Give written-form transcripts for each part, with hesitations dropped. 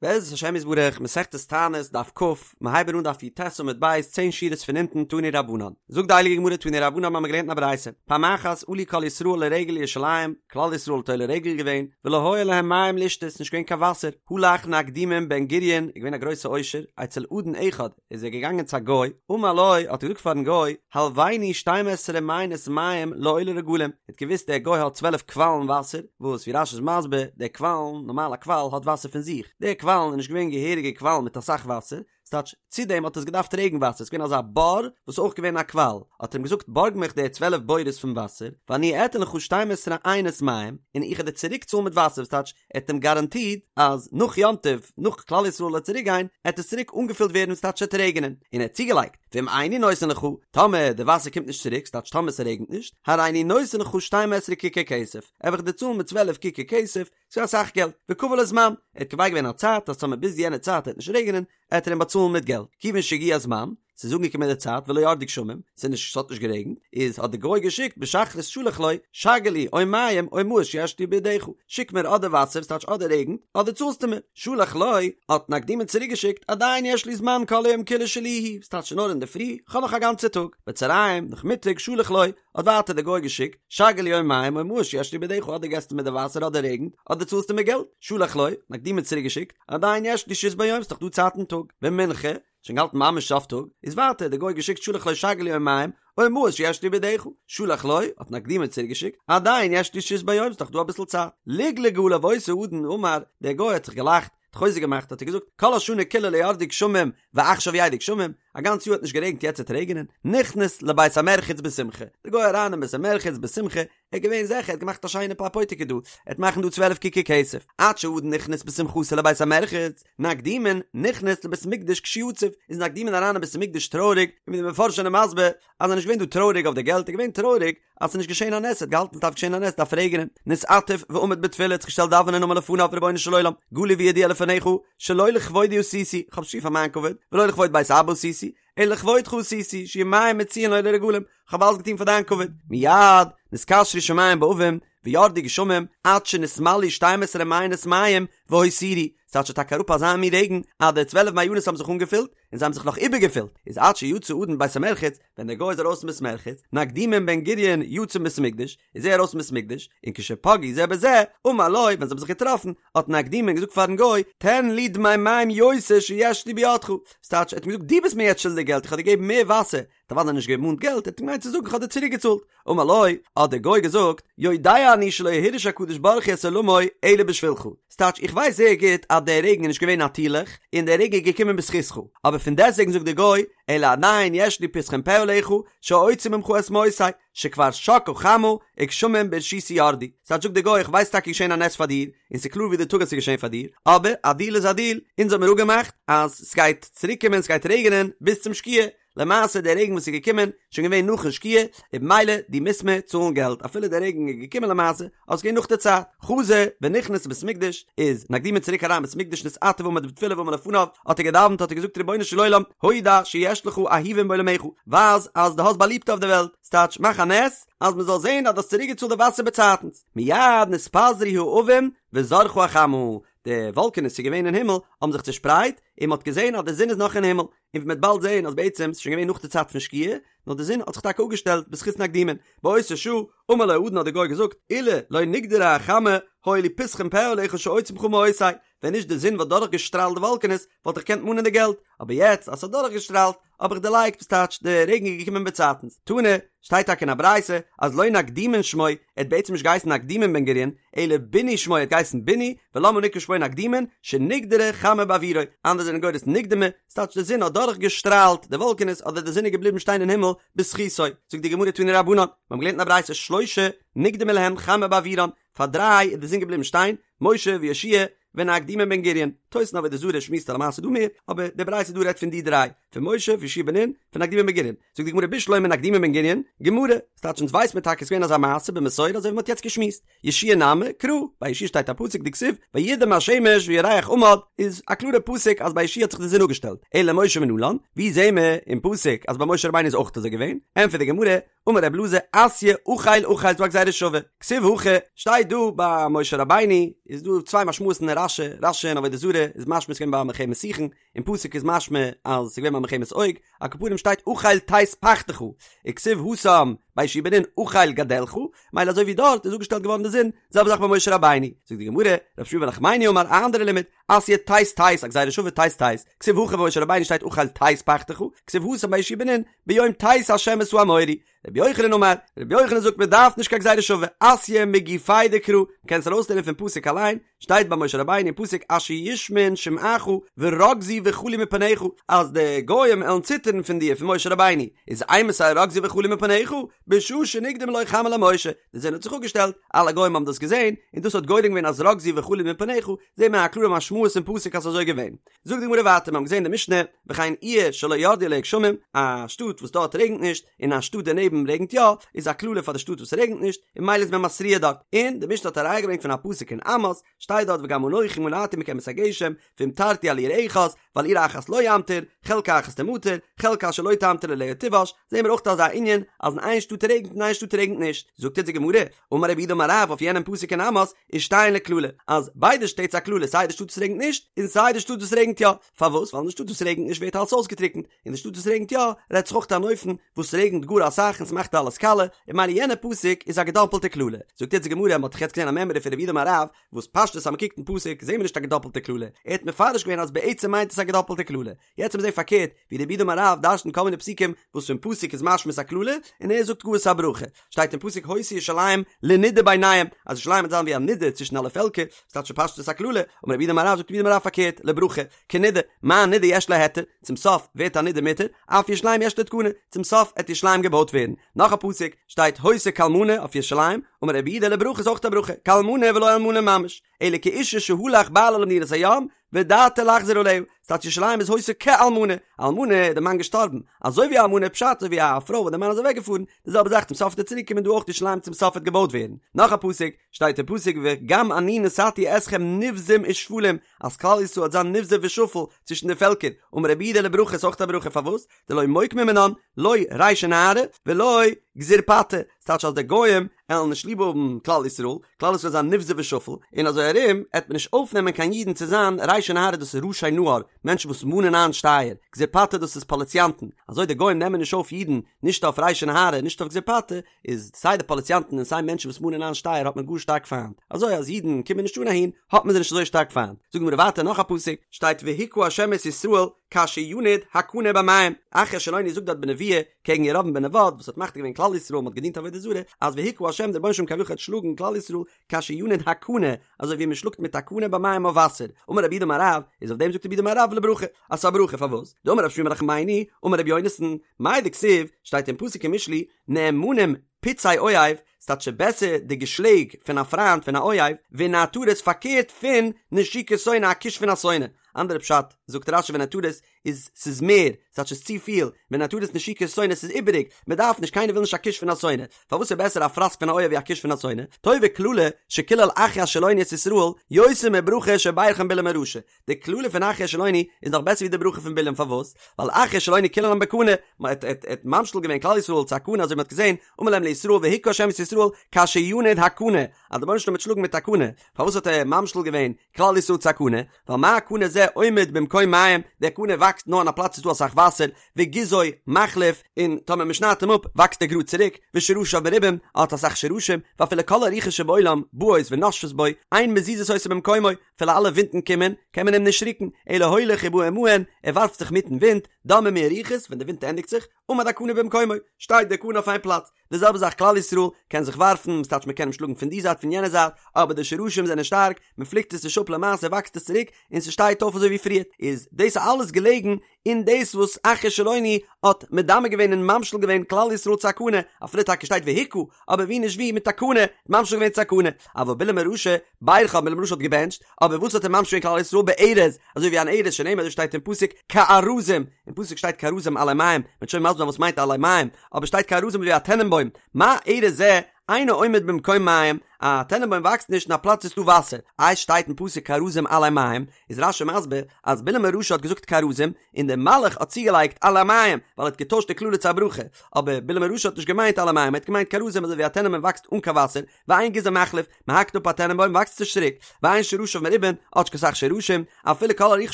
בעזרת השם יתברך, מסכת תענית, דף כ, מיר הייבן אן דף י"ט עמוד ב', צען שורות פון אונטן, תנו רבנן. זאגט די הייליגע גמרא תנו רבנן מיר האבן געלערנט אין א ברייתא, פעם אחת עלו כל ישראל לרגל לירושלים, כלל ישראל האט עולה רגל געווען, ולא היה להם מים לשתות, נישט געווען קיין וואסער, הלך נקדימון בן גוריון, איז געווען א גרויסע עושר, אצל אדון אחד, איז ער געגאנגען צו א גוי, אמר לו, האט ער געזאגט פארן גוי, הלויני שתים עשרה מעיינות מים לעולי רגלים, ער האט געוואוסט דער גוי האט צוועלף קוואלן וואסער, וואס ווי רש"י איז מסביר, די קוואלן, נארמאל א קוואל האט וואסער פון זיך, די קוואלן איז נישט געווען געהעריגע קוואלן מיט אסאך וואסער, ס'טייטש, צו דעם האט עס געדארפט רעגן וואסער, ס'איז געווען אזא בור וואס איז אויך געווען א קוואל, האט ער אים געזאגט בארג מיך די צוועלף בורות פון וואסער, ואני אתן לך שתים עשרה עיינות מים, און איך וועל דיר צוריק צאלן מיט וואסער, וואס טייטש, ער האט אים גאראנטירט אז נאך יום טוב, נאך כלל ישראל וועט צוריק גיין, עט עס צוריק אנגעפילט ווערן ס'טייטש ס'עט רעגענען, און ער האט צוגעלייגט, ואם איני נותן לך, טאמער די וואסער קומט נישט צוריק, ס'טייטש טאמער ס'רעגנט נישט, הריני נותן לך שתים עשרה ככר כסף, וועל איך דיר צאלן מיט צוועלף ככר כסף, ס'איז אסאך געלט, וקבע לו זמן, ער האט קובע געווען א צייט אז טאמער ביז יענע צייט עט נישט רעגענען, עט ער אים באצאלן מיט געלט, כיוון שהגיע הזמן, ס'איז אנגעקומען די צייט ולא ירדו גשמים, ס'איז נישט ס'האט נישט גערעגנט, איז האט די גוי געשיקט בשחרית שלח לו, שגר לי או מים או מעות שיש לי בידך, שיק מיר אדער וואסער ס'טייטש אדער רעגנט, אדער צאלסטו מיר, שלח לו, האט נקדימון צוריק געשיקט, עדיין יש לי זמן כל היום כולו שלי הוא, ס'טייטש נאר אינדערפרי, כ'האב נאך א גאנצע טאג, בצהריים, נאכמיטאג, שלח לו, האט ווייטער די גוי געשיקט, שגר לי או מים או מעות שיש לי בידך, אדער געסטו מיר די וואסער אדער רעגנט, אדער צאלסטו מיר געלט, שלח לו, נקדימון צוריק געשיקט, עדיין יש לי שהות ביום, ס'נאך דא צייט אין טאג, במנחה, שוין געהאלטן ממש סוף טאג, איז ווייטער די גוי געשיקט שלח לו שגר לי או מים, או מעות שיש לי בידך, שלח לו, האט נקדימון צוריק געשיקט, עדיין יש לי שהות ביום, ס'נאך דא אביסל צייט. לגלג עליו אותו אדון אמר, דער גוי האט זיך געלאכט, האט חוזק געמאכט, האט ער געזאגט, כל השנה כולה לא ירדו גשמים, ועכשיו ירדו גשמים, א גאנץ יאר האט נישט גערעגנט יעצט וועט רעגענען, נכנס לבית המרחץ בשמחה, דער גוי אריין אין בית המרחץ בשמחה, ער איז געווען זיכער ער האט געמאכט א שיינע פאר פויטיקע דא, ער וועט מאכן דא 12 ככר כסף, עד שהאדון נכנס בשמחתו לבית המרחץ, נקדימון נכנס לבית המקדש כשהוא עצוב, איז נקדימון אריין אין בית המקדש טרויעריג, און ווי די מפרשים זענען מסביר אז ער איז נישט געווען דא טרויעריג אויף די געלט, ער איז געווען טרויעריג אז ס'איז נישט געשען א נס, ער האט געהאלטן ס'דארף געשען א נס, דארף רעגענען, נתעטף ועמד בתפילה, האט זיך געשטעלט דאווענען אמר לפניו רבונו של עולם, גלוי וידוע לפניך, שלא לכבודי עשיתי, כ'האב נישט געטון פאר מיין כבוד, ולא לכבוד בית אבא עשיתי, אלא לכבודך עשיתי, שיהו מים מצויין לעולי רגלים, כ'האב אלעס געטון פאר דיין כבוד. מיד נתקשרו שמים בעבים, וירדו גשמים, עד שנתמלאו שתים עשרה מעיינות מים, והותירו, ס'טייטש ס'איז טאקע אראפ אזא מין רעגן, אז די צוועלף מעיינות האבן זיך אנגעפילט, און זיי האבן זיך נאך איבערגעפילט, איז עד שיצא האדון מבית המרחץ, ווען דער גוי איז ארויס פון בית מרחץ, נקדימון בן גוריון יצא מבית המקדש, איז ער ארויס פון בית המקדש, און כשפגעו זה בזה, אמר לו, ווען זיי האבן זיך געטראפן, האט נקדימון געזאגט פארן גוי, תן לי דמי מים יותר שיש לי בידך, ס'טייטש, ער האט אים געזאגט, דו ביסט מיר יעצט שולדיג געלט, איך האב דיר געגעבן מער וואסער, האט אוודאי נישט געמאנט געלט, ער האט געמיינט צו זאגן איך האב דיר צוריק געצאלט, אמר לו, האט דער גוי געזאגט, יודע אני שלא הרעיש הקדוש ברוך הוא את עולמו אלא בשבילך, ס'טייטש איך ווייס זייער גוט אז דער רעגן איז נישט געווען נאטירליך, און דער רעגן איז געקומען בזכותך, אבער פון דעסטוועגן זאגט דער גוי, אלא עדיין יש לי פתחון פה עליך, שאוציא ממך את מעותי, שכבר שקעה חמה, וגשמים ברשותי ירדו. ס'טייטש זאגט דער גוי איך ווייס טאקע געשען א נס פאר דיר, און ס'איז קלאר ווי די טאג אז ס'איז געשען פאר דיר, אבער א דיל איז א דיל, אונז האמיר אפגעמאכט אז ס'גייט צוריק קומען ס'גייט רעגענען ביז צום שקיעה, למעשה דער רעגן וואס איז געקומען איז שוין געווען נאכן שקיעה, און במילא דו מוזט מיר צאלן געלט אפילו דער רעגן איז געקומען למעשה, אבער ס'איז געווען נאך די צייט. חזר ונכנס לבית המקדש, איז נקדימון צוריק אריין בית המקדש נתעטף ועמד בתפילה ואמר לפניו, האט ער געדאווענט האט ער געזאגט רבונו של עולם, הודע שיש לך אהובים בעולמך, ווייז אז דו האסט באליבטע אויף די וועלט, ס'טייטש מאך א נס אז מ'זאל זען אז דו האסט צוריק געצאלט די וואסער באצייטנס, מיד נתפזרו העבים וזרחה החמה, די וואלקענעס ס'איז געווען אין הימל האבן זיך צושפרייט, און מ'האט געזען אז די זון איז נאך אין הימל, און ווי מ'וועט באלד זען אז בעצם ס'איז שוין געווען נאך די צייט פון שקיעה, נאר די זון האט זיך טאקע אפגעשטעלט בזכות נקדימון. באותה שעה, אמר לו האדון האט דער גוי געזאגט, אילו לא נגדרה החמה, היה לי פתחון פה עליך שאוציא ממך מעותי, ווען נישט די זון וואלט דורכגעשטראלט די וואלקענעס, וואלט איך געקענט מאנען די געלט, אבער יעצט אז ס'האט דורכגעשטראלט, האב איך דערלייגט, וואס טייטש, די רעגן איז געקומען באצייטנס. תנא, שטייט טאקע אין א ברייתא, אז לא נקדימון שמו, ער האט בעצם נישט געהייסן נקדימון בן גוריון, אלא בוני שמו, ער האט געהייסן בוני, ולמה נקרא שמו נקדימון, שנגדרה חמה בעבורו, אנדערע זענען גורס נקדמה, ס'טייטש די זון האט דורך געשטראלט די וואלקענעס אדער די זון איז געבליבן שטיין אין הימל בזכותו, זאגט די גמרא תנו רבנן, מיר האבן געלערנט אין א ברייתא שלשה נקדמה להם חמה בעבורן, פאר דריי איז די זון געבליבן שטיין, משה ויהושע ונקדימון בן גוריון, תוס' אין עבודה זרה שמועסט א למעשה דא מער, אבער די ברייתא דא רעדט פון די דריי, פון משה פון יהושע בן נון, פון נקדימון בן גוריון, זאגט די גמרא בשלמא נקדימון בן גוריון, גמרא, ס'טייטש אונז ווייס מיר טאקע ס'איז געווען אזא מעשה במסורה אזוי ווי מ'האט יעצט געשמועסט, יהושע נמי, קרא, ביי יהושע שטייט א פסוק דכתיב, וידם השמש וירח עמד, איז א קלארע פסוק אז ביי יהושע האט זיך די זון אפגעשטעלט, אלא משה מנלן, ווי זעהן מיר אין פסוק אז ביי משה רבינו איז אויך אזוי געווען? ענטפערט די גמרא, אמר רב אלעזר אתיא אחיל אחיל ס'דא א גזירה שווה, כתיב הכא, שטייט דא ביי משה רבינו, איז דא צוויי משמעות'ן אין רש"י, רש"י אין עבודה זרה. איז משמע ס'איז געווען ביי מלחמת סיחון, אין פסוק איז משמע אז ס'איז געווען ביי מלחמת עוג, על כל פנים שטייט אכיל תת פחתך, וכתיב התם ביי יהושע בן נון אכיל גדלך, מילא אזוי ווי דארט איז אפגעשטעלט געווארן די זון, זעלבע זאך ביי משה רבינו, זאגט די גמרא, רב שמואל בר נחמני אמר א אנדערע לימוד, אתיא תת תת א גזירה שווה תת תת, כתיב הכא ביי משה רבינו שטייט אכיל תת פחתך, כתיב התם ביי יהושע בן נון, ביום תת השם את האמורי, רבי יוחנן אמר, רבי יוחנן זאגט מען דארף נישט קיין גזירה שווה, אתיא מגופיה דקרא, מען קען עס ארויסלערנען פון פסוק אליין, שטייט ביי משה רבינו אין פסוק אשר ישמעון שמעך ורגזו וחלו מפניך, אז די גוים עלן ציטערן פון דיר פון משה רבינו, איז אימתי רגזו וחלו מפניך, בשעה שנקדמה לו חמה למשה, די זון האט זיך אפגעשטעלט, אלע גוים האבן דאס געזען, און דאס האט גורם געווען אז רגזו וחלו מפניך, זעהט מען א קלארע משמעות אין פסוק אז ס'איז אזוי געווען. זאגט די גמרא ווייטער, מיר האבן געזען אין די משנה, וכן עיר שלא ירדו עליה גשמים, א שטאט וואס דארט רעגנט נישט, און א שטאט דערנעבן רעגנט יא, איז א קללה פאר די שטאט וואס רעגנט נישט, און ממילא איז מען מתריע דארט. און די משנה האט א ראיה געברענגט פון א פסוק אין עמוס, שטייט דארט וגם אנכי מנעתי מכם את הגשם, והמטרתי על עיר אחת, ועל עיר אחת לא אמטיר, חלקה אחת תמטר, חלקה אשר לא תמטיר עליה תיבש, זעהן מיר אויך אזא ענין, אז אין איין שטאט רעגנט און אין איין שטאט רעגנט נישט. זאגט אונז די גמרא, אמר רב יהודה אמר רב אויף יענעם פסוק אין עמוס, ושתיהן לקללה, אז ביידע שטעט איז א קללה סיי די שטאט וואס רעגנט נישט, און סיי די שטאט וואס רעגנט יא, פארוואס? ווייל אין די שטאט וואס רעגנט נישט ווערט אלעס אויסגעטריקנט, און די שטאט וואס רעגנט יא, רעדט זיך אויך אן אופן וואס רעגנט גאר אסאך און ס'מאכט אלעס קאלע, און ממילא יענע פסוק איז א געדאפלטע קללה. זאגט יעצט די גמרא, מ'האט דאך יעצט געזען א מימרא פון רב יהודה אמר רב, וואס פשטות אז מ'קוקט אין פסוק זעהן מיר נישט א געדאפלטע קללה, ער האט מפרש געווען אז בעצם מיינט עס א געדאפלטע קללה, יעצט וועט מען זעהן פארקערט ווי רב יהודה אמר רב דרש'נט כל מיני פסוקים וואס פון פסוק איז משמע ס'א קללה און ער זאגט גאר ס'א ברכה, שטייט אין פסוק היתה ירושלים לנידה ביניהם אז ירושלים וועט זיין ווי א נידה צווישן אלע פעלקער, ס'טייטש פשטות א קללה, אמר רב יהודה אמר רב זאגט רב יהודה אמר רב פארקערט לברכה, כנידה, מה נידה יש לה היתר, צום סוף ווערט א נידה מותר, אף ירושלים יש לה תקנה, צום סוף עט ירושלים געבויט ווערן. נאך א פסוק, שטייט היתה כאלמנה אויף ירושלים, אמר רב יהודה לברכה איז אויך א ברכה, כאלמנה ולא אלמנה ממש, אלא כאשה שהלך בעלה למדינת הים, ודעתו לחזור אליה, ס'טייטש ירושלים איז היתה כאלמנה, אלמנה איז די מאן געשטארבן, אזוי ווי א אלמנה פשט אזוי ווי א פרוי וואס די מאן איז אוועק געפארן, די זעלבע זאך צום סוף וועט ער צוריק קומען דא אויך ירושלים צום סוף וועט געבויט ווערן. נאך א פסוק, שטייט אין פסוק וגם אני נתתי אתכם נבזים ושפלים, אז כלל ישראל וועט זיין נבזה ושפל צווישן די פעלקער, אמר רב יהודה לברכה איז אויך א ברכה פארוואס? דלא מוקמי מינן, לא רישי נהרי ולא גזירפטי, ס'טייטש אז די גוים עלן נישט ליב האבן כלל ישראל, כלל ישראל זיין נבזה ושפל, און אזוי ארום עט מען נישט אויפנעמען קיין אידן צו זיין רישי נהרי דאס איז ראשי נהר, מענטשן וואס מאנען איין שטייער, גזירפטי דאס איז פאליציאנטן, אזוי די גוים נעמען נישט אויף אידן נישט אויף רישי נהרי נישט אויף גזירפטי, איז סיי די פאליציאנטן און סיי מענטשן וואס מאנען איין שטייער האט מען גאר שטארק פיינט, אזוי אז אידן קומען נישט אן אהין האט מען זיי נישט אזוי שטארק פיינט. זאגט די גמרא ווייטער נאך א פסוק, שטייט והכה ה' את ישראל כאשר ינוד הקנה במים, אחיה השילוני זאגט דארט בנבואה קעגן ירבעם בן נבט וואס האט מחטיא געווען כלל ישראל מען האט געדינט עבודה זרה, אז והכה ה' דער רבונו של עולם כביכול וועט שלאגן כלל ישראל כאשר ינוד הקנה, אזוי ווי מען שלאגט מיט א קנה במים אויף וואסער, אמר רב יהודה אמר רב, איז אויף דעם זאגט רב יהודה אמר רב לברכה, אז ס'איז א ברכה פארוואס? דאמר רב שמואל בר נחמני, אמר רבי יונתן, מאי דכתיב, שטייט אין פסוק אין משלי, נאמנים פצעי אוהב, ס'טייטש בעסער די געשלעג פון א פריינט פון א אוהב, ונעתרות פארקערט פון נשיקת שונא א קוש פון א שונא. אנדערע פשט, זאגט רש"י ונעתרות איז ס'איז מער, ס'טייטש ס'איז צופיל, ונעתרות נשיקת שונא ס'איז איבעריג, מ'דארף נישט, קיינער וויל נישט א קוש פון א שונא, פארוואס איז בעסער א פראסק פון א אוהב ווי א קוש פון א שונא? טובה קללה שקילל אחיה השילוני את ישראל, יותר מברכה שברכן בלעם הרשע, די קללה פון אחיה השילוני איז נאך בעסער ווי די ברכה פון בלעם פארוואס? ווייל אחיה השילוני קיללם בקנה, מען האט האט ממשיל געווען כלל ישראל צו א קנה אזוי ווי מען האט געזען, אמר להם לישראל והכה השם את ישראל כאשר ינוד הקנה, אז דער רבונו של עולם וועט שלאגן מיט א קנה, פארוואס האט ער ממשיל געווען כלל ישראל צו א קנה? ווייל מה קנה זה עומד במקום מים, דער קנה וואקסט נאר אין א פלאץ וואס איז דא אסאך וואסער, וגזעו מחליף, און טאמער מען שניידט אים אפ וואקסט ער גראד צוריק, ושרשיו מרובים, ער האט אסאך שרשים, ואפילו כל הרוחות שבעולם באות ונושפות בו, אין מזיזות אותו ממקומו, אפילו אלע ווינטן קומען, קען מען אים נישט רוקן, אלא הולך ובא עמהן, ער ווארפט זיך מיטן ווינט, דממו הרוחות, ווען די ווינט ענדיגט זיך, עמד הקנה במקומו, שטייט דער קנה אויף איין פלאץ. די זעלבע זאך כלל ישראל קען זיך ווארפן, ס'טייטש מען קען אים שלאגן פון די זייט פון יענע זייט, אבער די שרשים זענען שטארק, מען פליקט עס נישט אפ למעשה וואקסט עס צוריק און ס'שטייט אויף אזוי ווי פריער, איז דאס אלעס געלעגן אין דאס וואס אחיה השילוני האט מדמה געווען און ממשיל געווען כלל ישראל צו א קנה, אפילו טאקע שטייט והכה, אבער ווי נישט ווי מיט א קנה, ממשיל געווען צו א קנה, אבל בלעם הרשע, ברכן, בלעם הרשע האט געבענטשט, אבער וואס האט ער ממשיל געווען כלל ישראל בארז, אזוי ווי אן ארז שנאמר אזוי שטייט אין פסוק כארזים, אין פסוק שטייט כארזים עלי מים, מ'וועט שוין מסביר זיין וואס מיינט עלי מים, אבער שטייט כארזים ווי א טענענבוים, מה ארז זה אינו עומד במקום מים, א טענענבוים וואקסט נישט אין א פלאץ וואו ס'איז דא וואסער, איי שטייט אין פסוק כארזים עלי מים, איז רש"י מסביר אז בלעם הרשע האט געזאגט כארזים, און דער מלאך האט צוגעלייגט עלי מים, ווייל ער האט געטוישט די קללה צו א ברכה, אבער בלעם הרשע האט נישט געמיינט עלי מים, ער האט געמיינט כארזים אזוי ווי א טענענבוים וואקסט אן קיין וואסער, ואין גזעו מחליף, מען האקט אפ א טענענבוים וואקסט עס נישט צוריק, ואין שרשיו מרובין, האט נישט קיין סך שרשים, אפילו כל הרוחות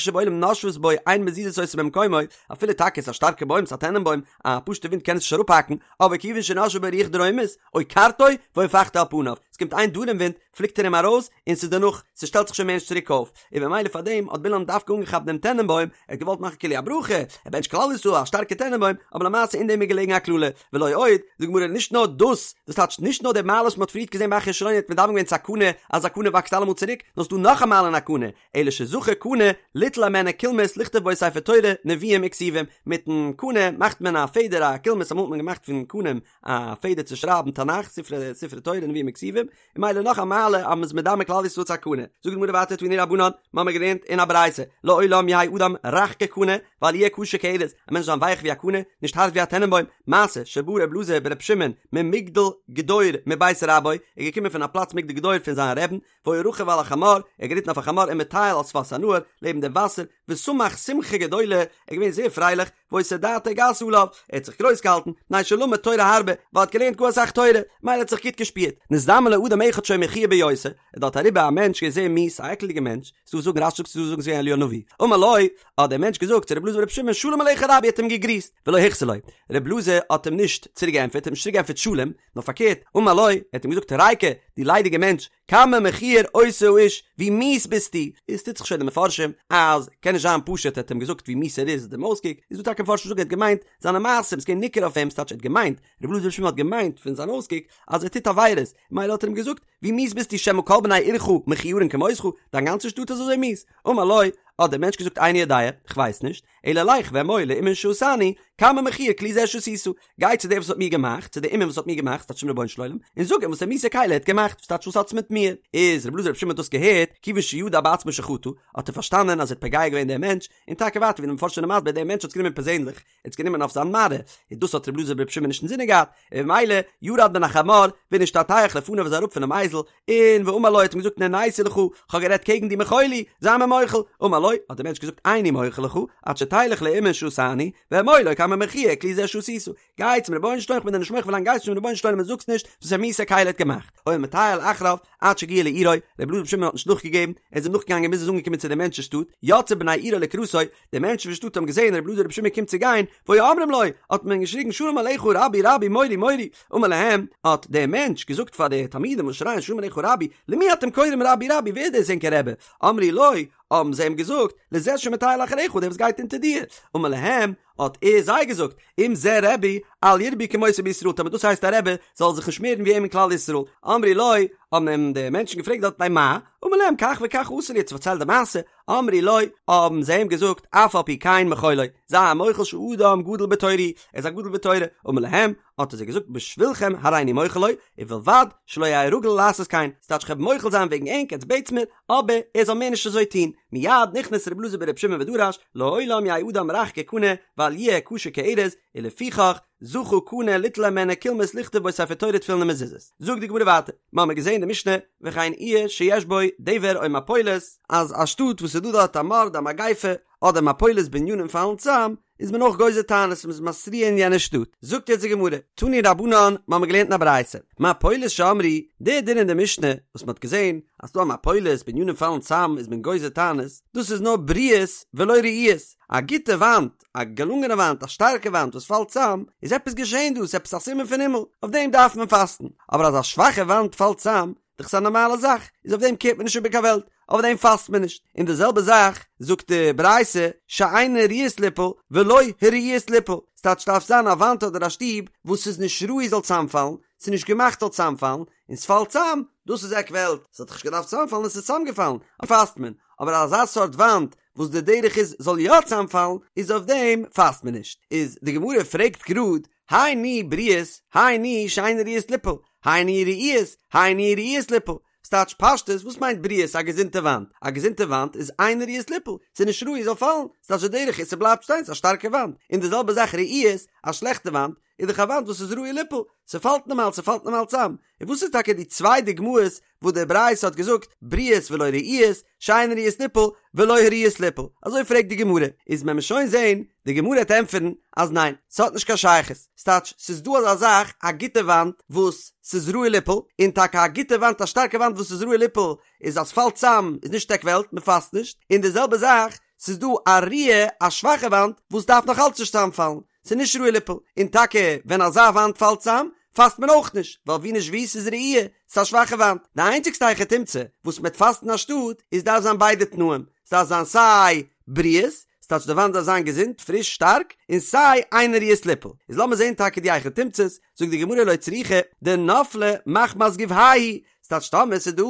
שבעולם נושבות בו אין מזיזות אותו ממקומו, אפילו טאקע עס איז א שטארקע בוים, ס'איז א טענענבוים, א פשוטע ווינט קען עס נישט אראפהאקן, אבער כיוון שנשבה בו רוח דרומית, עוקרתו והופכתו על פניו, עס קומט איין דרום ווינט, פליקט ער אים ארויס, און ס'איז דערנאך, ס'שטעלט זיך שוין מער נישט צוריק אויף, און במילא פאר דעם האט בלעם דווקא אנגעכאפט דעם טענענבוים, ער האט געוואלט מאכן כאילו א ברכה, ער בענטשט כלל ישראל א שטארקע טענענבוים, אבער למעשה אין דעם איז געלעגן א קללה, ולא עוד, זאגט די גמרא נישט נאר דאס, דאס טייטשט נישט נאר די מעלה וואס מ'האט פריערט געזען ביי אחיה השילוני האט מדמה געווען צו א קנה, אז א קנה וואקסט אלעמאל צוריק, נאר ס'דא נאך א מעלה אין א קנה, אלא שזכה קנה ליטול הימנו קולמוס לכתוב בו ספר תורה נביאים וכתובים, מיטן קנה מאכט מען א פעדער א קולמוס אמאל האט מען געמאכט פון קנים א פעדער צו שרייבן תנך ספרי ספרי תורה נביאים וכתובים, און ממילא נאך א מעלה אז מ'איז מדמה כלל ישראל צו א קנה. זאגט די גמרא ווייטער תנו רבנן, מ'האמיר געלערנט אין א ברייתא, לעולם יהא אדם רך כקנה, ואל יהיה קשה כארז, א מענטש זאל זיין ווייך ווי א קנה, נישט הארט ווי א טענענבוים, מעשה שבא ר' אלעזר בר' שמעון ממגדל גדור מבית רבו, ער איז געקומען פון א פלאץ מגדל גדור פון זיין רעבן, והיה רכוב על החמור, ער האט געריטן אויף א חמור ומטייל על שפת הנהר, לעבן דעם וואסער, ושמח שמחה גדולה, ער איז געווען זייער פרייליך, והיתה דעתו גסה עליו, ער האט זיך גרויס געהאלטן, מפני שלמד תורה הרבה, ווייל ער האט געלערנט גאר אסאך תורה, ממילא האט זיך גוט געשפירט. נזדמן לו אדם אחד שהיה מכוער ביותר, איז דארט אריבער א מענטש געווען זייער מיאוס, א עקלדיגער מענטש, ס'דא וואס זאגן רש"י זאגט ס'דא וואס זאגן ס'איז געווען אליהו הנביא, אמר לו, האט דער מענטש געזאגט צו רבי אלעזר ברבי שמעון שלום עליך רבי האט אים געגריסט, ולא החזיר לו, רבי אלעזר האט אים נישט צוריק געענטפערט, האט אים נישט צוריק געענטפערט שלום, נאר פארקערט, אמר לו, ער האט אים געזאגט ריקא, דו ליידיגער מענטש, כמה מכוער אותו האיש, ווי מיאוס ביסטו, איז טוט זיך שוין די מפרשים אז קען נישט זיין פשוט ער האט אים געזאגט ווי מיאוס ער איז דעם אויסקוק, איז דא טאקע מפרשים וואס זאגן ער האט געמיינט זיינע מעשים, ס'געווען ניכר אויף אים, ס'טייטש ער האט געמיינט, רבי אלעזר ברבי שמעון האט געמיינט פון זיין אויסקוק אז ער טוט עבירות, מילא האט ער אים געזאגט, ווי מיאוס ביסטו שמא כל בני עירך מכוערין כמותך, דיין גאנצע שטאט איז אזוי מיאוס, אמר לו, האט דער מענטש געזאגט איני יודע, כ'ווייס נישט, אלא לך ואמור לאומן שעשני, כמה מכוער כלי זה שעשית, גיי צו דער וואס האט מיר געמאכט, צו דער אומן וואס האט מיר געמאכט, ס'טייטש צום רבונו של עולם, און זאג אים וואס א מיאוסע כלי ער האט געמאכט, וואס טייטש וואס האטס מיט מיר? איז רבי אלעזר ברבי שמעון האט דאס געהערט, כיוון שידע בעצמו שחטא, האט ער פארשטאנען אז ער האט פוגע געווען דעם מענטש, און טאקע ווייטער ווי די מפרשים זענען מסביר, דער מענטש האט עס גענומען פערזענליך, ער האט עס גענומען אויף זיין מראה, און דאס האט רבי אלעזר ברבי שמעון נישט אינזינען געהאט, און ממילא ירד מן החמור, ונשתטח לפניו איז אראפ פונעם אייזל, און ואמר לו האט אים געזאגט נעניתי לך, כ'האב גערעדט קעגן דיר מחול לי, זיי מיר מוחל, אמר לו, האט דער מענטש געזאגט איני מוחל לך, עד שתלך לאומן שעשני, ואמור לו כמה מכוער כלי זה שעשית, גיי צום רבונו של עולם כ'בין דיר נישט מוחל ווילאנג גייסט נישט צום רבונו של עולם און זאגסט נישט וואס א מיאוסע כלי ער האט געמאכט, היה מטייל אחריו עד שהגיע לעירו, רבי אלעזר ברבי שמעון האט נישט נאכגעגעבן, ער איז אים נאכגעגאנגען ביז ער איז אנגעקומען צו דעם מענטש'ס שטאט, יצאו בני עירו לקראתו, די מענטשן פון שטאט האבן געזען רבי אלעזר ברבי שמעון קומט צו גיין, והיו אומרים לו, האט מען געשריגן שלום עליך רבי רבי מורי מורי, אמר להם, האט דער מענטש געזאגט פאר די תלמידים וואס שרייען שלום עליך רבי, למי אתם קוראים רבי רבי, ווער איז דאס ענקער רבי? אמרו לו, האבן זיי אים געזאגט, לזה שמטייל אחריך, דער וואס גייט אונטער דיר. אמר להם, האט ער זיי געזאגט, אם זה רבי, אל ירבו כמותו בישראל, טאמער דאס הייסט א רבי, זאל זיך נישט מערן ווי אים אין כלל ישראל. אמרו לו, האבן אים די מענטשן געפרעגט דארט מפני מה? אמר להם, כך וכך עשה לי, האט פארציילט די מעשה, אמרו לו, האבן זיי אים געזאגט, אף על פי כן מחול לו, זיי אים מוחל שאדם גדול בתורה, ער איז א גדול בתורה, אמר להם, האט ער זיי געזאגט, בשבילכם הריני מוחל לו, ובלבד שלא יהא רגיל לעשות כן, ס'טייטש כ'וועל מוחל זיין וועגן ענק, עטס בעטס מיר, אבער ער זאל מער נישט אזוי טון, מיד נכנס רבי אלעזר ברבי שמעון ודרש, לעולם יהא אדם רך כקנה, ואל יהיה קשה כארז, ולפיכך, זכה קנה ליטול הימנו קולמוס לכתוב בו ספר תורה תפילין ומזוזות. זאגט די גמרא ווייטער, מ'האמיר געזען די משנה, וכן עיר שיש בו דבר או מפולת, אז א שטאט וואס איז דא דארט א מארד א מגיפה, אדער מפולת בנינים פאלן צאם, איז מען אויך גוזר תענית און מ'איז מתריע אין יענע שטאט. זאגט יעצט די גמרא, תנו רבנן, מ'האמיר געלערנט אין א ברייתא, מפולת שאמרו, די דין אין די משנה, וואס מ'האט געזען, אז ס'דא א מפולת, בנינים פאלן צאם, איז מען גוזר תענית, דאס איז נאר בריאות ולא רעועות, א גוטע וואנט, א געלונגענע וואנט, א שטארקע וואנט וואס פאלט צאם, איז עפעס געשען דא, ס'איז עפעס א סימן פון הימל, אויף דעם דארף מען פאסטן, אבער אז א שוואכע וואנט פאלט צאם, דאך ס'איז א נארמאלע זאך, איז אויף דעם קערט מען נישט איבער קיין וועלט, אויף דעם פאסט מען נישט, און די זעלבע זאך זאגט די ברייתא, שאינן ראויות ליפול ולא הראויות ליפול, ס'טייטש ס'דארף זיין א וואנט אדער א שטוב וואס איז נישט ראוי זאל צאמפאלן, ס'איז נישט געמאכט זאל צאמפאלן, און ס'פאלט צאם, דאס איז עק וועלט, ס'האט דאך נישט געדארפט צאמפאלן און ס'איז צאמגעפאלן, פאסט מען, אבער אזא סארט וואנט וואס די דרך איז זאל יא צאמפאלן, איז אויף דעם פאסט מען נישט. איז די גמרא פרעגט גראד, הי ניהו בריאות, הי ניהו שאינן ראויות ליפול, הי ניהו רעועות, הי ניהו ראויות ליפול. ס'טייטש פשטות, וואס מיינט בריאות א געזונטע וואנט? א געזונטע וואנט איז אינן ראויות ליפול, ס'איז נישט ראוי זאל פאלן, ס'טייטש די דרך איז ס'בלייבט שטיין, ס'איז א שטארקע וואנט. און די זעלבע זאך רעועות, א שלעכטע וואנט, איז דאך א וואנט וואס איז ראוי ליפול, ס'פאלט נארמאל, ס'פאלט נארמאל צאם, און וואס איז טאקע די צוויי דוגמאות וואס די ברייתא האט געזאגט בריאות ולא רעועות, שאין ראויות ליפול ולא הראויות ליפול, אזוי פרעגט די גמרא, איז וועט מען שוין זעהן, די גמרא העט ענטפערן אז ניין, ס'האט נישט קיין שייכות, ס'טייטש ס'איז דא אזא זאך א גוטע וואנט וואס ס'איז ראוי ליפול, און טאקע א גוטע וואנט א שטארקע וואנט וואס איז ראוי ליפול איז אז ס'פאלט צאם איז נישט עק וועלט, מ'פאסט נישט, און די זעלבע זאך ס'איז דא א רעועה א שוואכע וואנט וואס דארף נאך אלץ נישט צאמפאלן, ס'איז נישט ראוי ליפול, און טאקע ווען אזא וואנט פאלט צאם, פאסט מען אויך נישט, ווייל ווי נישט ווי ס'איז רעועה, ס'איז א שוואכע וואנט. די איינציגסטע היכי תמצא וואס מ'וועט פאסטן אנשטאט, איז דארף זיין ביידע תנאים, ס'דארף זיין סיי בריאות, ס'טייטש די וואנט דארף זיין געזונט, פריש, שטארק, און סיי אינה ראויות ליפול. איז לאמיר זען טאקע די היכי תמצא'ס, זאגט די גמרא לא צריכא דנפלה מחמת גובהא, ס'טייטש טאמער ס'איז דא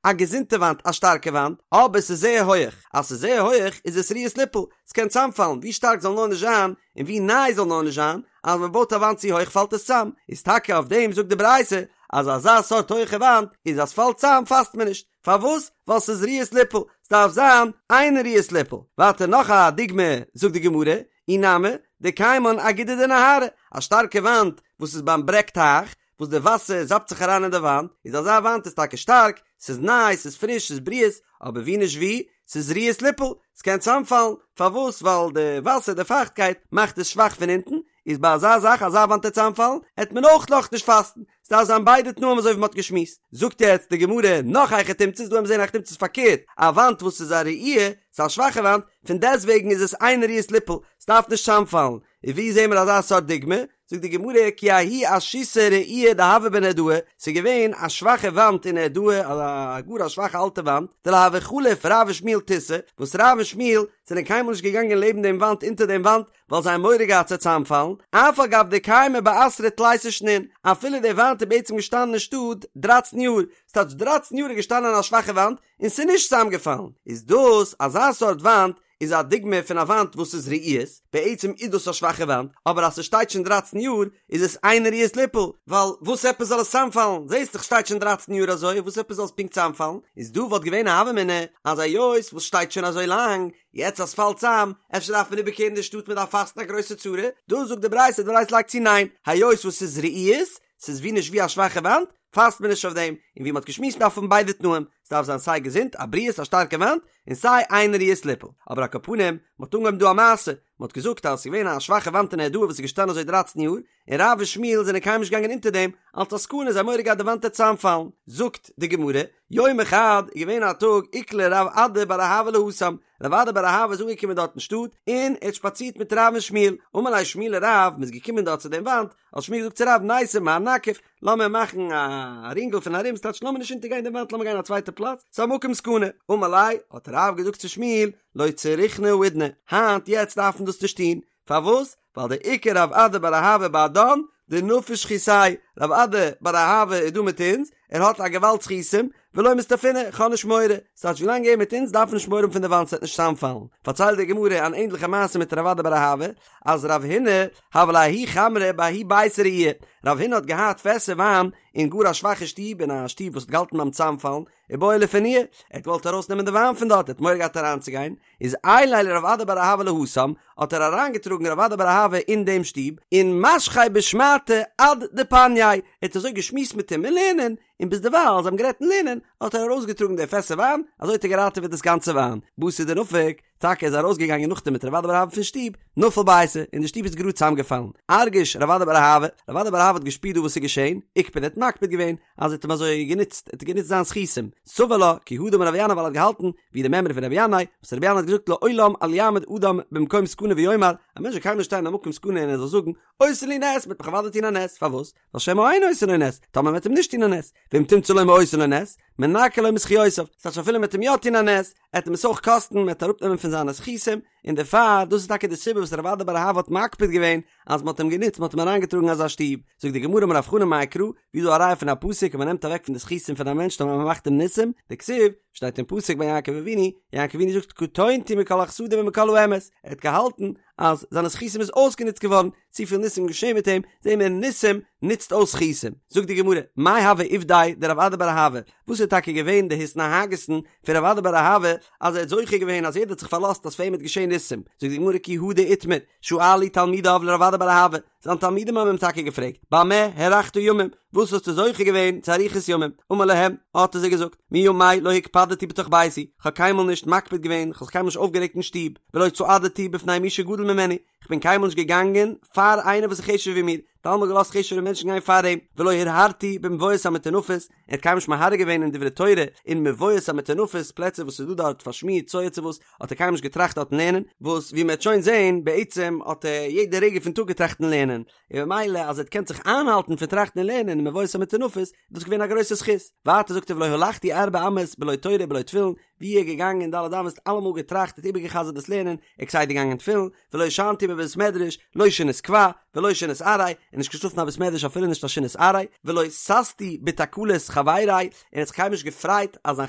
א געזונטע וואנט א שטארקע וואנט אבער ס'איז זייער הויעך אז ס'איז זייער הויעך איז עס ראויות ליפול ס'קען צאמפאלן ווי שטארק זאל נאר נישט זיין און ווי ניי זאל נאר נישט זיין אז מ'בויט א וואנט צו הויך פאלט עס צאם איז טאקע אויף דעם זאגט די ברייתא אז אזא סארט הויכע וואנט איז אז ס'פאלט צאם פאסט מען נישט פארוואס ווייל ס'איז ראויות ליפול ס'דארף זיין אינה ראויות ליפול ווייטער נאך א דוגמא זאגט די גמרא אי נמי דקיימן אגודא דנהרא א שטארקע וואנט וואס איז ביים ברעג טייך וואס די וואסער זאפט זיך אריין אין די וואנט, איז אזא וואנט איז טאקע שטארק, ס'איז ניי, ס'איז פריש, ס'איז בריאות, אבער ווי נישט ווי, ס'איז ראויות ליפול, ס'קען צאמפאלן, פארוואס? ווייל די וואסער, די פייכטקייט, מאכט עס שוואך פון אונטן, איז ביי אזא זאך, אזא וואנט וועט צאמפאלן, העט מען אויך נאך נישט פאסטן, ס'דארף זיין ביידע תנאים אזוי ווי מ'האט געשמועסט. זאגט יעצט די גמרא נאך היכי תמצא'ס, דא האבן מיר זעהן היכי תמצא'ס פארקערט, א וואנט וואס איז א רעועה, ס'איז א שוואכע וואנט, פון דעסטוועגן איז עס אינה ראויות ליפול, ס'דארף נישט צאמפאלן, און ווי זעהן מיר אזא סארט דוגמא? זאגט די גמרא כי ההיא אשיתא רעועה דהואי בנהרדעא, ס'איז געווען א שוואכע וואנט אין נהרדעא, א גאר א שוואכע אלטע וואנט, דלא הוה חליף רב ושמואל תותה, וואס רב און שמואל זענען קיינמאל נישט געגאנגען לעבן דעם וואנט אונטער דעם וואנט, ווייל זיי האבן מורא געהאט ס'וועט צוזאמפאלן, אף על גב דקיימא באתרא תליסר שנין, אפילו די וואנט איז בעצם געשטאנען אין שטאט דרייצן יאר, ס'טייטש דרייצן יאר איז געשטאנען א שוואכע וואנט, און ס'איז נישט צוזאמגעפאלן, איז דאס אזא סארט וואנט איז א דוגמא פון א וואנט וואס איז רעועות, בעצם איז דאס א שוואכע וואנט, אבער אז ס'שטייט שוין דרייצן יאר איז עס אינה ראויות ליפול, ווייל וואס עפעס זאל עס צאמפאלן, זעסט דאך שטייט שוין דרייצן יאר אזוי, וואס עפעס זאל עס פונקט צאמפאלן, איז דא וואלט געווען א הוה אמינא אז היות וואס שטייט שוין אזוי לאנג, יעצט אז ס'פאלט צאם, אפשר דארף מען איבערקערן די שטאט מ'דארף פאסטן א גרויסע צרה, דא זאגט די ברייתא, די ברייתא לייגט צו ניין, היות וואס ס'איז רעועות, ס'איז ווי נישט ווי א שוואכע וואנט, פאסט מען נישט אויף דעם, און ווי מ'האט געשמועסט דארף האבן ביידע תנאים, ס'דארף זיין סיי געזונט, א בריאות, א שטארקע וואנט, און סיי אינה ראויות ליפול. אבער על כל פנים, מ'האט אנגעהויבן דא א מעשה, מ'האט געזאגט אז ס'איז געווען א שוואכע וואנט אין נהרדעא וואס איז געשטאנען אזוי דרייצן יאר, און רב און שמואל זענען קיינמאל נישט געגאנגען אונטער דעם, אלס א סכנה, זיי האבן מורא געהאט די וואנט וועט צוזאמפאלן. זאגט די גמרא, יומא חד, איז געווען א טאג, איקלע רב אדא בר אהבה להתם, רב אדא בר אהבה איז אנגעקומען דארט אין שטאט, און ער האט שפאצירט מיט רב און שמואל, אמר ליה שמואל לרב, מ'איז געקומען דארט צו דעם וואנט, האט שמואל געזאגט צו רב ניתי מר נקיף, לאמיר מאכן א רינגל פון ארום, ס'טייטש לאמיר נישט אונטערגיין דעם וואנט לאמיר גיין א צווייטע פלאץ, ס'איז א מקום סכנה, אמר ליה, האט רב געזאגט צו שמואל, לא צריכנא האידנא, היינט יעצט דארף מען דאס נישט טון, פארוואס? ווייל דאיכא רב אדא בר אהבה בהדן, דנפיש זכותיה, רב אדא בר אהבה איז דא מיט אונז, ער האט א געוואלד זכותים, ולא מסתפינא, כ'האב נישט מורא, ס'טייטש ווילאנג ער מיט אונז דארף מען נישט מורא האבן פון די וואנט ס'וועט נישט צוזאמפאלן. פארציילט די גמרא אן ענדליכע מעשה מיט רב אדא בר אהבה, אז רב הונא הוה ליה ההוא חמרא בההוא ביתא רעיעא, רב הונא האט געהאט פעסער וויין אין גאר א שוואכע שטוב, אין א שטוב וואס האט געהאלטן ביים צוזאמפאלן, ובעי לפנויי, ער האט געוואלט ארויסנעמען די וויין פון דארט, ער האט מורא געהאט אריינצוגיין, איז עייליה לרב אדא בר אהבה להתם, האט ער אריינגעטראגן רב אדא בר אהבה אין דעם שטוב, און משכיה בשמעתא עד דפנייה, ער האט אזוי געשמועסט מיט אים אין לערנען, און ביז דערווייל זיי האבן גערעדט אין לערנען, האט ער ארויסגעטראגן די פעסער וויין, אזוי האט ער געראטעוועט דאס גאנצע וויין. בתר דנפק, טאקע איז ארויסגעגאנגען נאכדעם מיט רב אדא בר אהבה פון שטוב, נפל ביתא, און די שטוב איז גראד צוזאמגעפאלן. ארגיש רב אדא בר אהבה, רב אדא בר אהבה האט געשפירט דא וואס איז געשען, איקפד ער האט מקפיד געווען, אז ער האט אים אזוי גענוצט, ער האט גענוצט זיין זכותים. סבר לה, כי הא דאמר רבי ינאי ווייל ער האט געהאלטן, ווי די מימרא פון רבי ינאי, וואס רבי ינאי האט געזאגט לעולם אל יעמוד אדם במקום סכנה ויאמר, א מענטש זאל קיינמאל נישט שטיין אין א מקום סכנה און ער זאל זאגן, עושין לי נס, מ'וועט מיך אוודאי טון א נס, פארוואס? ווייל שמא אין עושין לו נס, טאמער מ'וועט אים נישט טון א נס, ואם תמצא לומר עושין לו נס, מנכין לו מזכיותיו, ס'טייטש אפילו מ'וועט אים יא טון א נס, עט אים עס אויך קאסטן, מ'וועט אראפנעמען פון זיינע זכותים, און דערפאר, דאס איז טאקע די סיבה וואס רב אדא בר אהבה האט מקפיד געווען, אז מ'האט אים גענוצט, מ'האט אים אריינגעטראגן אזא שטוב. זאגט די גמרא אמר רב חנן מאי קרא, ווי איז דא א ראיה פון א פסוק אז מ'נעמט אוועק פון די זכותים פון א מענטש טאמער מ'מאכט אים ניסים, דכתיב, שטייט אין פסוק ביי יעקב אבינו, יעקב אבינו זאגט קטונתי מכל החסדים ומכל האמת, ער האט געהאלטן אז זיינע זכותים איז אויסגענוצט געווארן, צופיל ניסים געשען מיט אים, זעהן מיר ניסים נוצט אויס זכותים. זאגט די גמרא, מאי הוה עובדיה דרב אדא בר אהבה, וואס איז טאקע געווען די התנהגות'ן פון רב אדא בר אהבה אז ער האט זוכה געווען אז יעדער האט זיך פארלאזט אז פאר אים וועט געשען ניסים? ניסים, זאגט די גמרא כי הא דאיתמר, שאלו תלמידיו לרב אדא בר אהבה, זיין תלמידים האבן אים טאקע געפרעגט, במה הארכת ימים, וואס האסטו זוכה געווען צו אריכות ימים? אמר להם, האט ער זיי געזאגט, מימי לא הקפדתי בתוך ביתי, כ'האב קיינמאל נישט מקפיד געווען, כ'האב זיך קיינמאל נישט אויפגערעגט אין שטוב, ולא צעדתי בפני מי שגדול ממני, כ'בין קיינמאל נישט געגאנגען פאר איינער וואס איז חשוב'ער ווי מיר, האט אלעמאל געלאזט חשוב'ערע מענטשן גיין פאר אים, ולא הרהרתי במבואות המטונפות, ער האט קיינמאל נישט מהרהר געווען אין דברי תורה אין מבואות המטונפות, פלעצער וואס איז דא דארט פארשמירט צואה צו וואס, האט ער קיינמאל נישט געטראכט דארטן לערנען, וואס ווי מען וועט שוין זען, בעצם האט ער יעדע רגע פון טאג געטראכט אין לערנען, און ממילא אז ער האט געקענט זיך איינהאלטן פון טראכטן אין לערנען אין מבואות המטונפות, איז דאס געווען א גרויסע זכות. ווייטער זאגט ער ולא הלכתי ארבע אמות בלא תורה ובלא תפילין, ווי ער איז געגאנגען ד' אמות אלעמאל געטראכט האט איבערגעחזרט דאס לערנען, ער כסדר געגאנגען תפילין, ולא ישנתי בבית מדרש, לא שינת קבע, ולא שינת עראי, און נישט געשלאפן אין א בית מדרש אפילו נישט א שינת עראי, ולא ששתי בתקלת חברי, און האט זיך קיינמאל נישט געפרייט אז זיין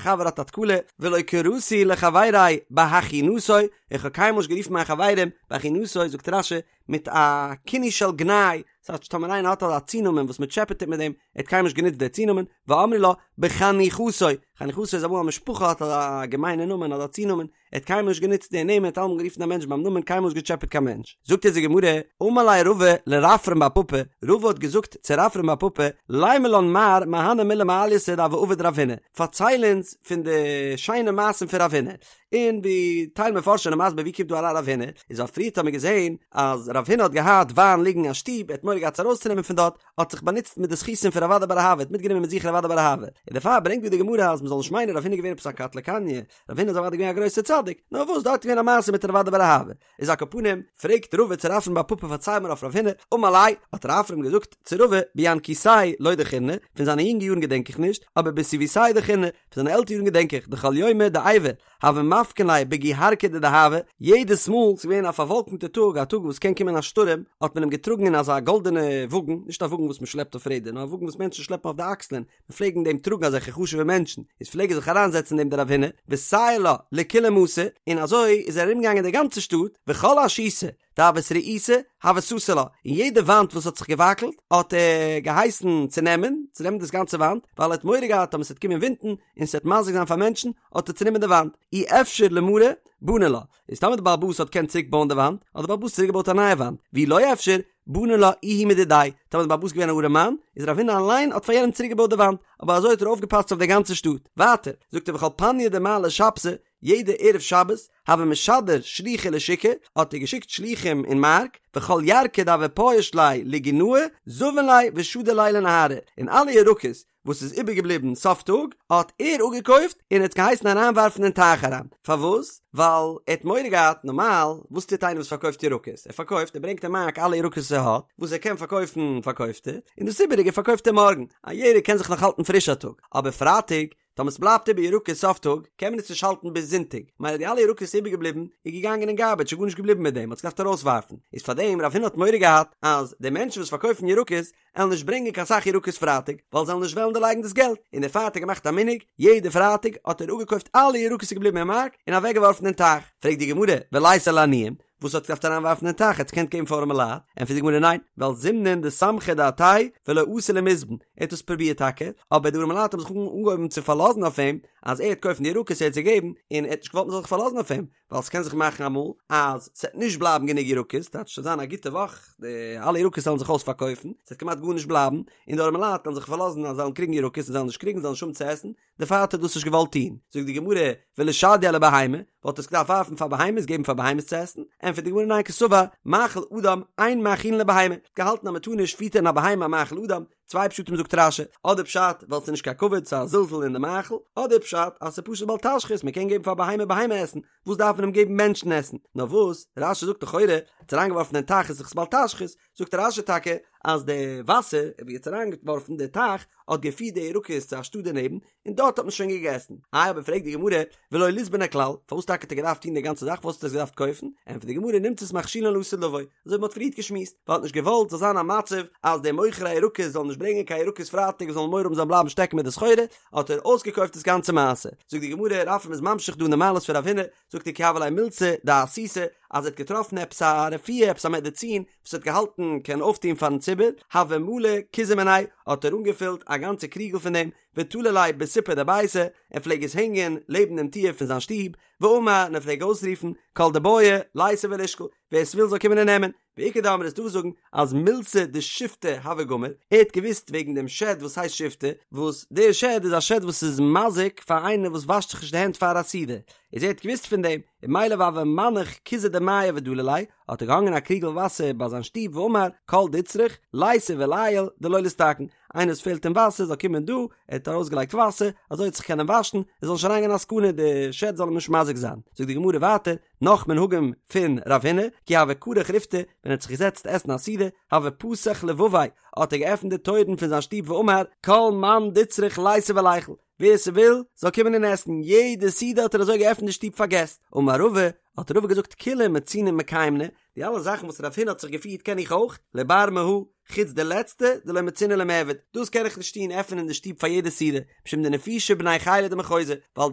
חבר האט א תקלה, ולא קראתי לחברי בהכינתו, איך האב קיינמאל נישט גערופן מיין חברים בהכינתו, זאגט רש"י, מיט א כינוי של גנאי, ס'טייטש טאמער איינער האט אזא צונאמען וואס מ'טשעפעט אים מיט דעם, ער האט קיינמאל נישט גענוצט דער צונאמען, ואמרי לה, בחניכתו, חניכתו איז אמאל א משפחה האט אזא געמיינע נאמען אזא צונאמען, ער האט קיינמאל נישט גענוצט די נעמען, ער האט אלעמאל גערופן א מענטש ביים נאמען, קיינמאל נישט געטשעפעט קיין מענטש. זאגט אונז די גמרא, אמר ליה רבא לרפרם בר פפא, רבא האט געזאגט צו רפרם בר פפא, לימא לן מר מהני מילי מעלייתא דהוה עביד רב הונא, פארצייל אונז פון די שיינע מעשים פון רב הונא, און ווי טייל מפרשים זענען מסביר ווי קומט דא אריין רב הונא, איז ווייל פריערט האט מען געזען אז רב הונא האט געהאט וויין ליגן אין שטוב, ער האט מורא געהאט עס ארויסצונעמען פון דארט, האט זיך באנוצט מיט די זכותים פון רב אדא בר אהבה, האט מיטגענומען מיט זיך רב אדא בר אהבה, און דערפאר ברענגט דא די גמרא אז מען זאל נישט מיינען רב הונא איז געווען עפעס א קטלא קניא, רב הונא איז אוודאי געווען א גרויסער צדיק, נאר וואס דארט איז געווען א מעשה מיט רב אדא בר אהבה, איז על כל פנים, פרעגט רבא צו רפרם בר פפא פארצייל מיר אויף רב הונא, אמר ליה, האט רפרם געזאגט צו רבא, בינקותיה לא דכירנא, פון זיינע יונגע יארן געדענק איך נישט, אבער בסיבותיה דכירנא, פון זיינע עלטערע יארן געדענק איך, דכל יומא דעיבא, הוו מפקין ליה בגוהרקא דדהבא, יעדעס מאל ס'איז געווען א פארוואלקנטע טאג, א טאג וואס קען קומען א שטורעם, האט מען אים געטראגן אין אזא גאלדענע וואגן, נישט א וואגן וואס מ'שלעפט אויף רעדער, נאר א וואגן וואס מענטשן שלעפן אויף די אקסלען, מ'פלעג אין דעם טראגן אזעלכע חשוב'ע מענטשן, איז פלעג ער זיך אריינזעצן אין דעם דער רב הונא, וסייר לה לכולה מתא, און אזוי איז ער ארומגעגאנגען די גאנצע שטאט, וכל אשיתא דהות רעיתא, הוה סתר לה, און יעדע וואנט וואס האט זיך געוואקלט, האט ער געהייסן צונעמען, צונעמען דאס גאנצע וואנט, ווייל ער האט מורא געהאט אז ס'וועט קומען ווינטן, און ס'וועט מזיק זיין פאר מענטשן, האט ער צונומען די וואנט, אי אפשר למריה, בני לה, איז טאמער די בעל הבית האט געקענט צוריק בויען די וואנט, האט די בעל הבית צוריק געבויט א נייע וואנט, ואי לא אפשר, בני לה איהו מדידיה, טאמער די בעל הבית איז געווען א ארעמאן, איז רב הונא אליין האט פאר יענעם צוריק געבויט די וואנט, אבער אזוי האט ער אויפגעפאסט אויף די גאנצע שטאט. ווייטער, זאגט ער וכל פניא דמעלי שבתא, יעדע ערב שבת, הוה משדר שלוחי לשוקא, האט ער געשיקט שלוחים אין מארק, וכל ירקא דהוה פייש ליה לגינאי, זבין ליה ושדי ליה לנהרא, און אלע ירקות וואס איז איבערגעבליבן סוף טאג, האט ער אפגעקויפט און האט געהייסן אריינווארפן אין טייך אריין. פארוואס? ווייל ער האט מורא געהאט, נארמאל, וואס טוט איינער וואס פארקויפט ירקות? ער פארקויפט, ער ברענגט אין מארק אלע ירקות וואס ער האט, וואס ער קען פארקויפן פארקויפט ער, און דאס איבעריגע פארקויפט ער מארגן. א ירק קען זיך נאך האלטן פריש א טאג, אבער פרייטאג, טאמער ס'בלייבט איבער ירקות סוף טאג, קען מען עס נישט האלטן ביז זונטאג, מילא די אלע ירקות איז איבערגעבליבן, איז געגאנגען אין גארבעדזש, איז גארנישט געבליבן מיט דעם, מ'האט עס געדארפט ארויסווארפן. איז פארדעם רב הונא האט מורא געהאט אז די מענטשן וואס פארקויפן ירקות, עלן נישט ברענגען קיין סאך ירקות פרייטאג, ווייל זיי עלן נישט וועלן דערלייגן דאס געלט, און דערפאר האט ער געמאכט א מנהג, יעדע פרייטאג האט ער אפגעקויפט אלע ירקות איז געבליבן אין מארק, און אוועקגעווארפן אין טייך. פרעגט די גמרא, וליתיה לעניים, וואס האט געדארפט אריינווארפן אין טייך, ער האט עס געקענט געבן פאר ארעמע לייט? ענטפערט די גמרא ניין, ווייל זימנין דסמכי דעתיה ולא אתו למיזבן, ער האט עס פרובירט טאקע, אבער די ארעמע לייט האבן זיך אנגעהויבן צו פארלאזן אויף אים, אז ער וועט קויפן די ירקות ער וועט זיי געבן, און ער האט נישט געוואלט מען זאל זיך פארלאזן אויף אים, ווייל ס'קען זיך מאכן אמאל אז ס'וועט נישט בלייבן גענוג ירקות, טייטש ס'וועט זיין א גוטע וואך, די אלע ירקות וועלן זיך אויספארקויפן, ס'וועט כמעט גארנישט בלייבן, און די ארעמע לייט וועלן זיך פארלאזן אז זיי וועלן קריגן ירקות און זיי וועלן נישט קריגן, זיי וועלן נישט האבן צו עסן, דערפאר האט ער דאס נישט געוואלט טון. זאגט די גמרא, ולשדייה לבהמה, וואלט ער עס געדארפט ווארפן פאר בהמות, געבן פאר בהמות צו עסן? ענטפערט די גמרא ניין קסבר, מאכל אדם אין מאכילין לבהמה, געהאלטן אז מ'טאר נישט פיטערן א בהמה א מאכל אדם, צוויי פשטים זאגט רש"י, אדער פשט ווייל ס'איז נישט קיין כבוד ס'איז א זלזול אין די מאכל, אדער פשט אז ס'איז פשוט בל תשחית מ'קען געבן פאר בהמה בהמה עסן, וואס דארף מען אים געבן מענטשן עסן? נאר וואס, רש"י זאגט לכאורה, האט עס אריינגעווארפן אין טייך איז דאך בל תשחית, זאגט רש"י טאקע אז די וואסער ווי ער האט עס אריינגעווארפן די טייך האט געפירט די ירקות צו א שטאט דערנעבן, און דארט האט מען שוין געגעסן. איי אבער פרעגט די גמרא, ולא ליזבנה כלל, פארוואס טאקע האט ער געדארפט טון די גאנצע זאך, פארוואס האט ער עס געדארפט קויפן? ענטפערט די גמרא, נמצאת מכשילן לעתיד לבוא, אזוי ווי מען האט פריערט געשמועסט, ווייל ער האט נישט געוואלט זאל זיין א מצב אז די מוכרי הירקות זאלן נישט ברענגען קיין ירקות פרייטאג און זאלן מורא האבן זיי בלייבן שטעקן מיט די סחורה, האט ער אויסגעקויפט דאס גאנצע מעשה. זאגט די גמרא, רפרם איז ממשיך דא אין די מעלות פון רב הונא, זאגט ער כי הוה ליה מילתא דאסותא, אז ער האט געטראפן עפעס א רפואה, עפעס א מעדעצין, וואס ער האט געהאלטן קען אויפטון פארן ציבור, הוה מלי כוזא מיניה, האט ער אנגעפילט א גאנצע קריגל פון דעם, ותלי ליה בסיפא דביתיה, ער פלעג עס הענגען לעבן דעם טיר פון זיין שטוב, ואמר, און ער פלעג אויסרופן, כל דבעי ליתא ולישקול, ווער עס וויל זאל קומען און נעמען, ואיכא דאמרי ס'איז דא וואס זאגן אז מילתא דשיפטא הוה גמיר, ער האט געוואוסט וועגן דעם שד וואס הייסט שיפטא, וואס דער שד איז א שד וואס איז מזיק פאר איינער וואס וואשט זיך נישט די הענט פאר א סעודה, איז ער האט געוואוסט פון דעם, און ממילא והוה מנח כוזא דמיא ודלי ליה, האט ער געהאנגען א קריגל וואסער ביי זיין שטוב ואמר, כל דצריך, ליתי וליעול, דלא ליסתכן, איינער וואס פעלט אים וואסער זאל קומען דא, ער האט ארויסגעלייגט וואסער, אזוי וועט זיך קענען וואשן, עס זאל נישט אריינגיין א סכנה, די שד זאל אים נישט מזיק זיין. זאגט די גמרא ווייטער, נאך מנהגים פון רב הונא, כי הוה כרך ריפתא, ווען ער האט זיך געזעצט עסן א סעודה, הוה פתח לבביה, האט ער געעפנט די טויערן פון זיין שטוב ואמר, כל מאן דצריך ליתי וליכול, ווער ס'וויל, זאל קומען און עסן, יעדע סעודה האט ער אזוי געעפנט די שטוב פאר געסט. אמר רבא, האט רבא געזאגט כולהו מצינא מקיימנא, די אלע זאכן וואס רב הונא האט זיך געפירט קען איך אויך, לבר מהא, חוץ די לעצטע, דלא מצינא למעבד, דאס קען איך נישט טון, עפענען די שטוב פאר יעדע סעודה, משום דנפישי בני חילא דמחוזא, ווייל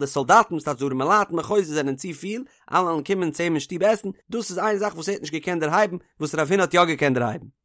די סאלדאטן, וואס טייטש די ארימעלייט אין מחוזא זענען צו פיל, אלע וועלן קומען צו אים אין שטוב עסן, דאס איז איין זאך וואס ער האט נישט געקענט דערהייבן, וואס רב הונא האט יא געקענט דערהייבן.